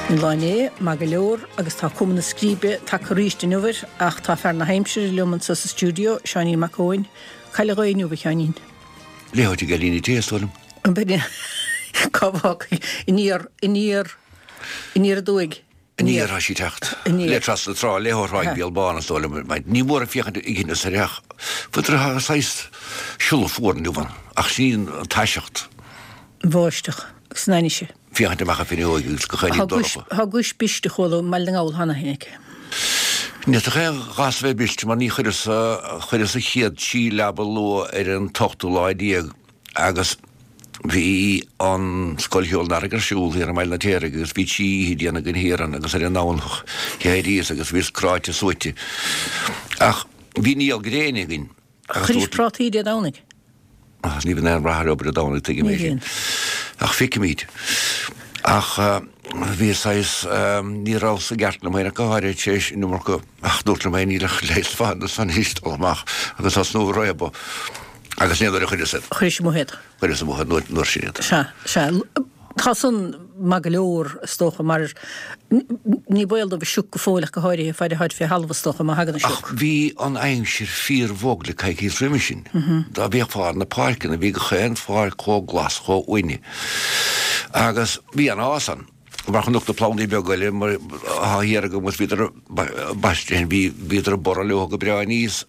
An lá inné, maith go leor, agus tá cuma na scríbe tagtha arís inniu air, ach tá fear na haimsire liom anseo sa stiúideo, Seáinín Mac Eoin. Cá bhfuil an ghaoth inniu, a Sheáinín? Léitheoir ag Eilín Té, is dóigh liom. An b'in é? Cá bhfágfaidh? Aniar, aniar, aniar aduaidh. Aniar tá sí ag teacht. Aniar. Le trasna na trá, le ó Thráigh Béal Bán, is dóigh liom. Ní mór féachaint ag an soir ach tá saghas siolla fuar inniu ann, ach sin í an taiseacht. An bháisteach agus an ainnise. Féachaint amach an fhuinneoig agus gach aon ní dorcha. Tá guais briste chuala i mBaile na nGall cheana féin aici. Ní fhéadfadh aon ghas a bheith briste mar ní chuireas, chuireas an chéad trí leaba luath ar an t-ochtú lá déag agus bhí an Scoil Cheoil an Earraigh ar siúl thiar i mBaile an Fheirtéaraigh agus bhí trí oíche déanta againn thiar ann agus ar an nDomhnach d'éiríos agus bhíos cráite suaite. Ach bhí néal gréine againn agus Chuiris prátaí Dé Domhnaigh? Ach ní bhíonn aon rath ar obair Dé Domhnaigh, tuigim é sin. Ach feicfimid. Ach bhí saghas, ní rabhas i gceart liom féin ach go háirithe tar éis an iomarca, ach dúrt liom féin níl ach leigheas fada san anois dul amach agus tosnú ag réabadh. Agus ní nuair a chuireas iad. Chuiris amuigh iad. Chuireas amuigh iad nuair sin iad. Sea, sea. Tá san maith go leor, is dócha, mar ní baol dóibh an sioc go fóill ach go háirithe, faid atáid fé thalamh, is dócha, má thagann an sioc. Ach bhí an aimsir fíor-bhog le coicíos roimhe sin. Dá bhféachfá ar na páirceanna, bhí gach aon pháirc chomh glas, chomh uaine. Agus bhí an-fhás ann. Mar chonac na plandaí beaga eile mar atá thiar agam agus bhíodar baiste, bhí, bhíodar ag borradh leo go breá aníos,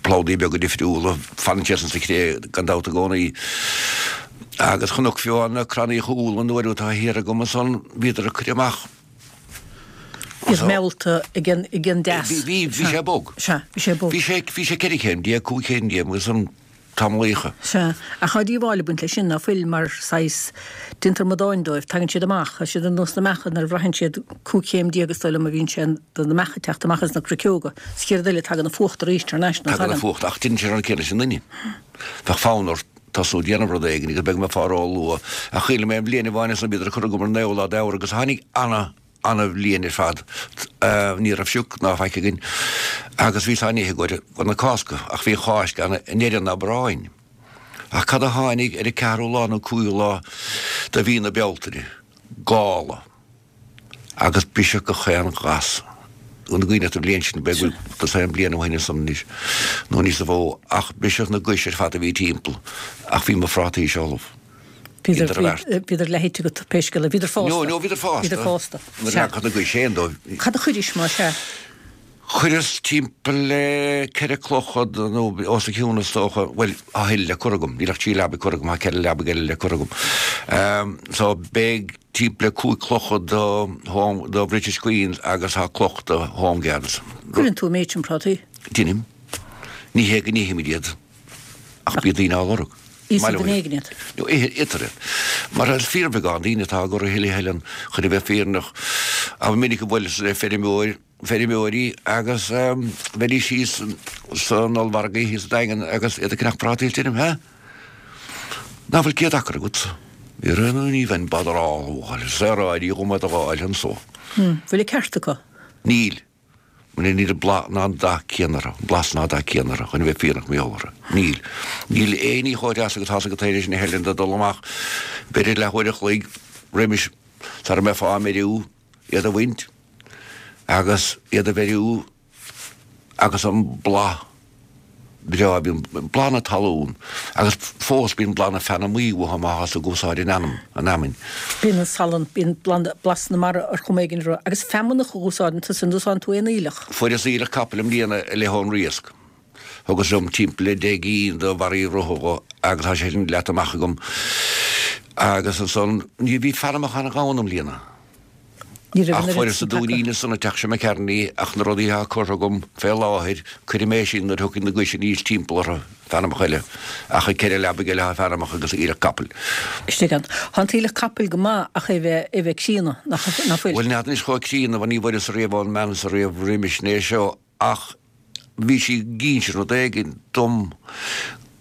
plandaí beaga difriúla, fanann siad sa chré gan dabht i gcónaí. Agus chonac fiú na crannaíocha úlla an uair atá thiar agam ansan, bhíodar ag cur amach. Iad meallta ag an, ag an dteas. Bhí, bhí, bhí sé bog. Sea, bhí sé bog. Bhí sé, bhí sé 14 chéim, 15 chéim agus an. tamallaíocha. Sea, ach tá díobháil ag baint leis sin, ná fuil, mar saghas, déantar amadáin dóibh, tagann siad amach, tá siad ar nós na mbeacha nuair a bhraitheann siad 15 chéim is dóigh liom a bhíonn sé do na mbeacha ag teacht amach as na cruiceoga, sa chéad rud eile tagann an fuacht arís thar n-ais, ná tagann? Tagann an fuacht, ach déanann sé an rud céanna leis an nduine. Bheadh fonn ort tosnú ag déanamh rud éigin agus beidh mé fá ró-luath, ach chuala mé an bhliain amháin ansan bhíodar ag cur agam ar an naoú lá d'Fheabhra agus tháinig ana, ana-bhliain ar fad. Ní raibh sioc ná faic againn agus bhíos á n-ithe i gcomhair na Cásca ach bhí an Cháisc ann i ndeireadh an Aibreáin. Ach cad a tháinig ar an ceathrú lá nó cúigiú lá de mhí na Bealtaine? Gála. Agus briseadh gach aon ghas. An gcuimhin leat an bhliain sin, b'fhéidir go bhfuil dosaen bliain ó shin ansan anois nó níos mó, ach briseadh na gais ar fad a bhí timpeall ach bhí mo phrátaí-se ullamh. Bhíodar, bhíodar leath-ite agat pé scéal é. Bhíodar fásta. No, no, bhíodar fásta. Bhíodar fásta. Nuair a leagfadh na gais féin dóibh. Cad a chuiris más ea? Chuireas timpeall le ceithre clocha nó os a chionn is dócha, bhuel, tá a thuilleadh le cur agam, níl ach trí leabaidh curtha agam, tá ceithre leabaidh eile le cur agam. So beidh timpeall le cúig clocha do Home, do British Queens agus tá cloch do Home Guards. Cuireann tú an méid sin prátaí? Deinim. Ní hé go n-ithimid iad. Ach bíonn daoine á lorg. Íosfaidh duine éigin iad. No, itear iad. Mar is fíorbheagán daoine atá á gcur a thuilleadh a thuilleann chun a bheith fírinneach. Ba mhinic a bhuaileas le feirmeoir, feirmeoirí agus bheidís thíos san ollmhargadh thíos sa Daingean agus iad ag ceannach prátaí is deirim, Hé? Ná fuil 100 acra agat? Ní bheinn botherálach a fháil, saoráidí dhom iad a dh'fháil anso. Bhfuil an ceart acu? Níl. Níl an blas ná an dath céanna orthu, an blas ná dath céanna orthu, chun a bheith fírinneach mar gheall orthu. Níl. Níl aon ní chomh deas agus tá's agat féin leis na hEilean de dul amach b'fhéidir leathuair a chloig roimis sara mbeifeá á mbeiriú, iad a bhaint agus iad a bheiriú agus an blas breá, bíonn blas na talún agus fós bíonn blas na feanamaí uathu má thá tú ag úsáid an fheanam, an fheamainn. Bíonn an salann, bíonn blas na mara ar chuma éigin orthu. Agus feamnach a úsáideann tusa, an úsáideann tú aon aoileach? Fuaireas aoileach capaill i mbliana i leith ón Riasc. Thugas liom timpeall le 10 gcinn de bharraí rotha agus tá sé sin leata amach agam. Agus ansan, ní bhí feanamach an-ghann i mbliana. Ní raibh Ach an oiread fuaireas sin an dúinín tagtha. ansan an teach seo McCartney ach na rudaí atá curtha agam fé láthair, cuirfidh mé sin nuair a thiocfaidh na gais aníos timpeall orthu, feanamach eile. Ach ag ceithre leabaidh eile tá feanamach agus aoileach capaill. Istigh ann. Tá an t-aoileach capaill go maith ach é bheith, é bheith críonna, nach, nach fuil? Bhuel, n'fheadar anois chomh críonna, mar ní bhfuaireas riamh ón mbean so riamh roimis né seo ach bhí sí ag inse rud éigin dom.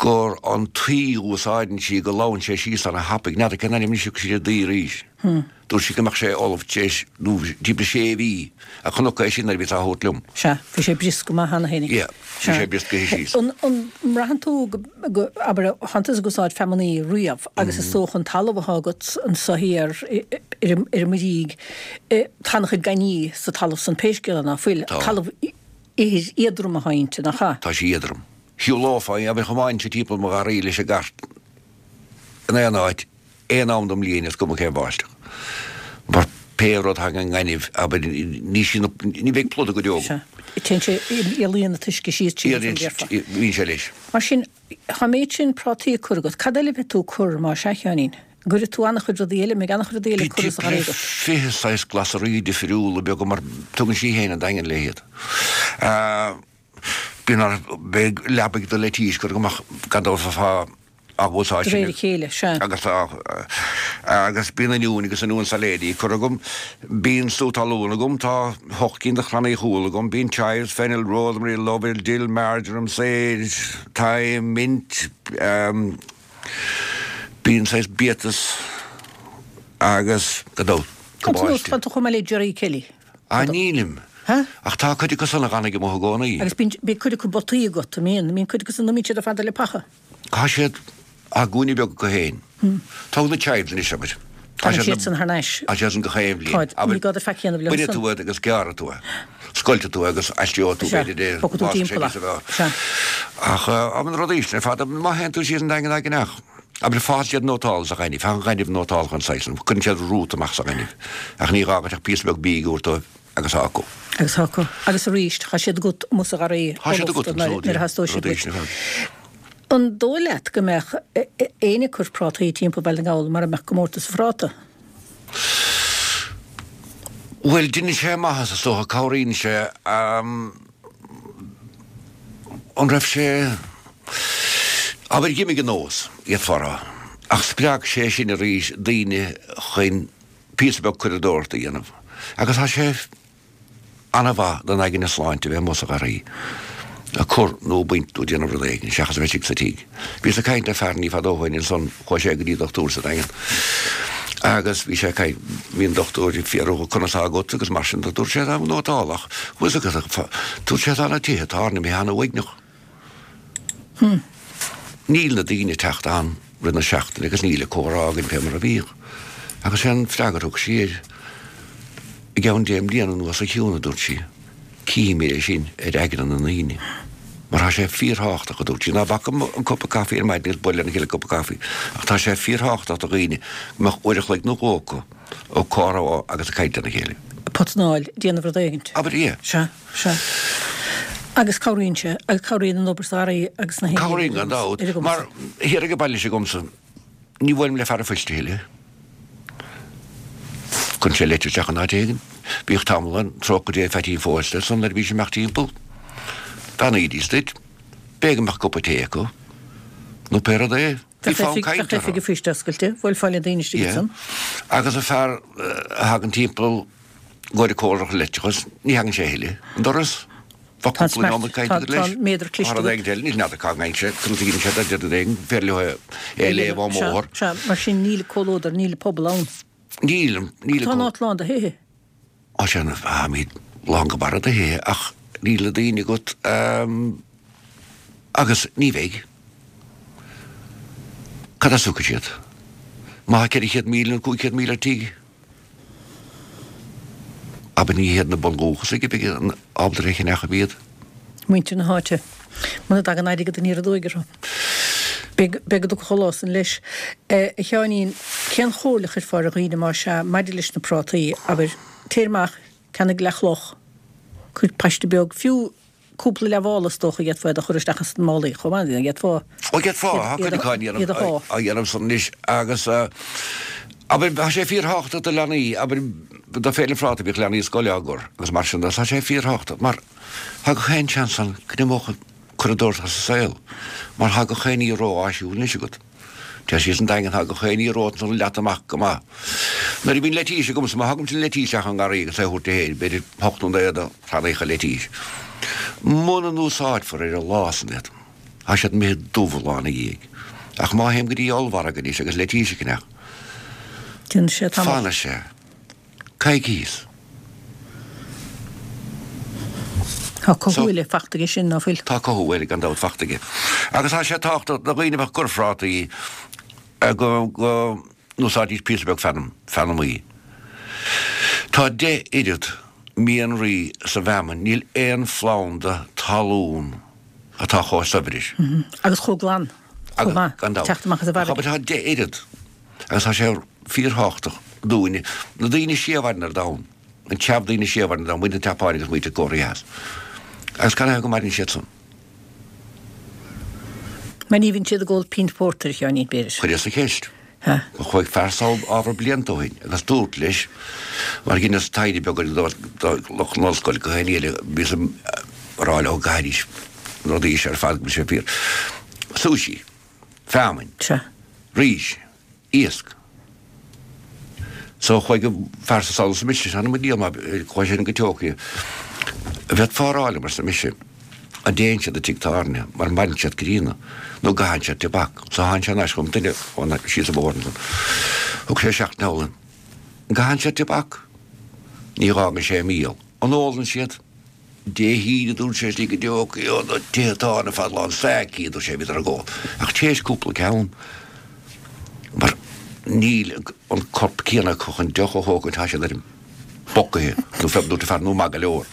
Gur an tuí a úsáideann sí go lobhann sé síos ana thapaidh. N'fheadar cén ainm anois a thug sí ar an dtuí arís. Dúirt sí go mbeadh sé ullamh tar éis nó timpeall sé mhí a chonac é sin nuair a bhíos á thabhairt liom. Sea, bhí sé briosc go maith cheana féinig. Yeah, bhí sé brioscaithe síos. An mbraitheann tú go, abair, thánn tusa ag úsáid feamainní riamh agus is dócha an talamh atá agat anso thiar ar an mBrígh, tá an-chuid gainní sa talamh san pé scéal é ná fuil. Tá. Talamh ithir éadrom atá inti, nach ea? Tá sí éadrom. Shiúlófá, abair, thiomáinfinn timpeall mo gharraí leis an gcairt in aon áit, aon am den mbliain is cuma cén bháisteach. Mar pé rud thagann an gaineamh, abair, ní sí na, ní bheidh pluda go deo agam. Sea. Téann sé, éalaíonn an t-uisce síos tríd an déarfá. Bíonn sé leis. Mar sin, tá an méid sin prátaí á cur agat. Cad eile a bheidh tú ag cur má sea, a Sheáinín? An gcuirfidh tú an-chuid rudaí eile, an mbeidh an-chuid rudaí eile curtha sa gharraí agat? 20 saghas glasraí difriúla beaga mar tugann sí féin an Daingean léi iad. Bíonn ar, beidh leabaidh do leitís curtha agam ach gan dabht fá á úsáid De réir a chéile, sea. Agus tá, agus bíonn oinniúin agus oinniúin sailéidí curtha agam, bíonn sú talún agam, tá hocht gcinn de chrannaí chúil agam, bíonn chives, fennel, rosemary, lovell, dill, marjoram, sage, thyme, mint, bíonn saghas biatas agus, gan dabht, cabáiste. Tá tú chomh maith le Gerry Kelly. Ah, nílim. Huh? Ach tá cuid acu san a dh'fhanfaidh amuigh i gcónaí. Agus bíonn, bíonn cuid acu botaí agat, an mbíonn? Bíonn cuid acu san, nó mbíonn siad ar fad le paca? Tá siad, á gcúinne beag acu féin. Tóg na chives anois, abair. Tá siad san thar n-ais. Tá siad san gach aon bhliain. Táid, ní gá duit faic a dhéanamh leo san. Bainfidh tú iad agus gearrfaidh tú é. Scoiltfidh tú é agus aistreoidh tú, Sea, b'fhéidir, é, bogfaidh tú má timpeall sé é. níos a bheadh. Sea. Ach, ah, na rudaí sin ar fad, má théann tú síos an Daingean ag an each, Abair, fásann siad nótálta sa ghaineamh, tá an gaineamh nótálta an saghas san, cuireann siad rút amach sa ghaineamh, ach ní gá duit ach píosa beag bídh a thabhairt dóibh agus tá acu. Agus tá acu. Agus arís, tá siad agat amuigh sa gharraí Tá siad agat nuair a theastóidh siad uait. An dóigh leat go mbeadh éinne ag cur prátaí timpeall Bhaile na nGall mara mbeadh comórtas an phráta? Bhuel, deineann sé maitheas is dócha, cabhraíonn sé. An raibh sé, abair, d'imigh an nós, d'fhéadfá a rá, ach spreag sé sin arís daoine chun píosa beag curadóireachta a dhéanamh agus tá sé ana-mhaith don aigne sláinte a bheith amuigh sa gharraí ag cur nó ag baint nó ag déanamh rud éigin seachas a bheith istigh sa tigh. Bhíos ag caint le fear ní fada ó shoin ansan, chuaigh sé go dtí dochtúir sa Daingean agus bhí sé ag caint, bhí an dochtúir ag fiafraí dhe conas tá agat agus mar sin de, dúirt sé tá nótálach, bhfuil fhios agat, dúirt sé tá na tithe atá ann imithe ana-uaigneach. Níl na daoine ag teacht ann rith na seachtaine agus níl an comhrá againn fé mar a bhíodh. Agus sé an freagra a thug sí air, I gceann deich mbliana anuas a Shiún, a dúirt sí, cífimid é sin ar aigne na ndaoine. Mar tá sé fíorthábhachtach, a dúirt sí, ná bac an cupa caife ar maidin agus bualadh lena chéile cupa caife, ach tá sé fíorthábhachtach do dhaoine go mbeadh uair a chloig nó dhó acu ag comhrá agus ag caint lena chéile. Potanáil, déanamh rud éigint. Abair, yeah. Sea. Sea. Agus cabhraíonn sé, agus cabhraíonn an obair sa gharraí agus na haon Cabhraíonn gan dabht, mar thiar ag an baile s'agamsa, ní bhuailim le fear an phoist a thuilleadh. Cuireann sé leitir isteach in áit éigin. Bhíodh tamall ann, trócaire Dé Pheaitín Phósta ansan nuair a bhí sé ag imeacht timpeall. Bheannaídís duit. B'fhéidir go mbeadh cupa tae acu, nó pé rud é. Bhí fonn cainte orthu. Bheadh oifig an phoist oscailte, bhuailfeá le daoine istigh ansan. Agus an fear a thagann timpeall gcomhair comhairleach leictreachais, ní thagann sé a thuilleadh an doras. Bheadh cúpla nóiméad cainte agat leis. Tá an méadar cliste agat. Rud éigin eile, níl n'fheadar cá ngeibheann sé, conas a gheibheann sé dá rud éigin, féidir leo é a léamh ón mbóthar. Sea, mar sin níl comhluadar, níl pobal ann. Níl, níl. Tá an áit lán de thithe. Á sea, táimid lán go barra de thithe ach níl na daoine agat agus ní bheidh. Cad as a thiocfaidh siad? Má tá 400,000 nó 500,000 ar tigh? Abair ní hiad na bundúchasaigh a bheidh ábalta a cheannach iad. Muintir na háite. Muna dtagann airgead aniar aduaidh orthu. Beidh go dtiocfaidh an lá san leis. A Sheáinín, cén chomhairle a chuirfeá ar dhaoine más ea maidir leis na prátaí, abair, téir amach, ceannaigh leathchloch, cuir paiste beag, fiú cúpla leathmhála is dócha d'fhéadfá iad a chur isteach ins na málaí chomh maith, d'fhéadfá Ó d'fhéadfá, tá cuid acu á iad a shá. á dhéanamh san anois agus abair tá sé fíorthábhachtach do leanaí, abair do Féile an Phráta bhíodh leanaí scoile á gcur agus mar sin de, tá sé fíorthábhachtach mar tá gach aon seans ann go n-imeodh an curadóireacht as an saol mar tá gach aon ní ró-áisiúil anois agat. Téir síos an Daingean, tá gach aon ní romhat ansan leata amach go maith. Nuair a bhíonn leitís agamsa, má thugaimse an leitís isteach ón ngarraí agus é a thabhairt di féin, b'fhéidir hocht nó naoi de chrannaíocha leitís. Muna n-úsáidfear ar an lá san iad. Tá siad imithe dubh lá ina dhiaidh. Ach má théim go dtí ollmhargadh anois agus leitís a cheannach, Déanann sé tamall. fanfaidh sé coicíos. Tá cothú eile fachta aige sin, ná fuil? Tá cothú eile gan dabht fachta aige. Agus tá sé tábhachtach do dhaoine a bheadh ag cur phrátaí go n-úsáidfidís píosa beag feanm, feanamaí. Tá 10 oiread mianraí sa bhfeamainn, níl aon phlanda talún atá chomh saibhir. Agus chomh glan, chomh maith, Gan dabht. teacht amach as an bhfarraige. Tá 10 oiread agus tá sé fíorthábhachtach dúinne, na daoine is sia a mhaireann ar domhan, an treabh daoine is sia a mhaireann ar domhan, muintir na Seapáine agus muintir Cóiré Theas. Agus canathaobh go maireann siad san? Mar ní bhíonn siad ag ól pínt phórtair, a Sheáinín, b'fhéidir. Chuireas an cheist. Chuaigh fear sall ábhar blianta ó shin agus dúrt leis, mar dheineas taighde beag do lucht na hollscoile go haon eile, bhíos ag rá leo go gcaithfidís na rudaí seo ar fad go bhfuil sé fíor. Sushi. Feamainn. Rís. Iasc. So chuaigh an fear seo sall arsa mise, th'anam mo dhiabhal má chuaigh sé go Tokyo. An bhféadfá a rá liom, arsa mise, an dtéann siad i dtigh tábhairne mar maireann siad críonna nó an gcaitheann siad tobac. So tháinig sé thar n-ais chugam, duine ón síos an bóthar ansan. Thug sé seachtain thall. An gcaitheann siad tobac? Ní dh'fhágann sé míol. An ólann siad? Dé hAoine, dúirt sé, istigh i dTokyo, na tithe tábhairne ar fad lán sake, dúirt sé, bhíodar ag ól. Ach théis cúpla ceann, mar níl an corp céanna acu chun deoch a thógaint, tá siad ar an bpocaithe, nó fé, dúirt an fear, nó maith go leor.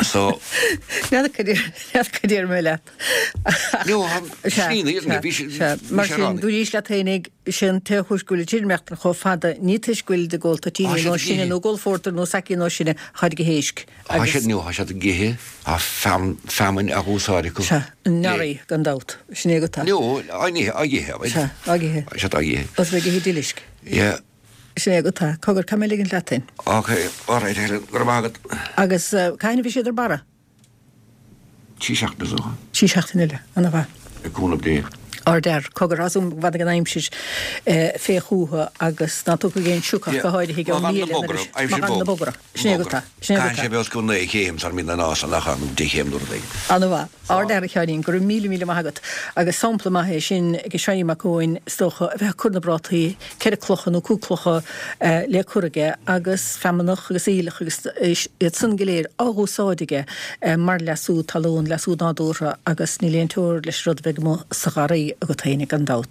So. N'fheadar cad déarfaidh mé leat. No, slí na fhírinne, bhí sé, Sea, mar sin, dúraís leat fhéinig, sé an t-aon chúis go bhfuil an tirmeachtan chomh fada, ní toisc go bhfuilid ag ól toitíní nó sine, nó ag ól phórtair nó sake nó sine, táid ag ithe éisc. Tá siad, no, tá siad ag ithe, tá feamainn á úsáid acu. Sea, nori, gan dabht. Sin é go tá. No, á n-ithe, á ithe, Sea, á ithe. Tá siad á ithe. Os ag ithe dilisc. Yeah. Sin é go tá. Cogar, caithfidh mé ligint leat féin. Ok, alright, Helen, go raibh maith agat. Agus cathain a bhí siad ar barra? 3 seachtaine is dócha. 3 seachtaine eile. Ana mhaith. Le cúnamh Dé. Ardfhear. Cogar, tá súil agam go bhfanfaidh an aimsir fé chúthu agus ná tiocfaidh aon sioc ach go háirithe i gceann mí eile nuair a Má fhanann na bogra. Sin é go tá. Sin é go tá. Caithfidh sé bheith os cionn 9 chéim sara mbíonn an fhás ann nó 10 chéim nó rud éigin. Ana mhaith. Ardfhear a Sheáinín, go raibh míle míle maith agat. Agus sampla maith é sin ag Seáinín Mac Eoin is dócha, a bheith ag cur na bprátaí, ceithre clocha nó cúig clocha le cur aige agus feamnach agus aoileach agus iad san go léir á dh'úsáid aige mar leasú talún, leasú nádúrtha agus níl aon teora leis an rud a bheidh amuigh sa gharraí agat féinig gan dabht.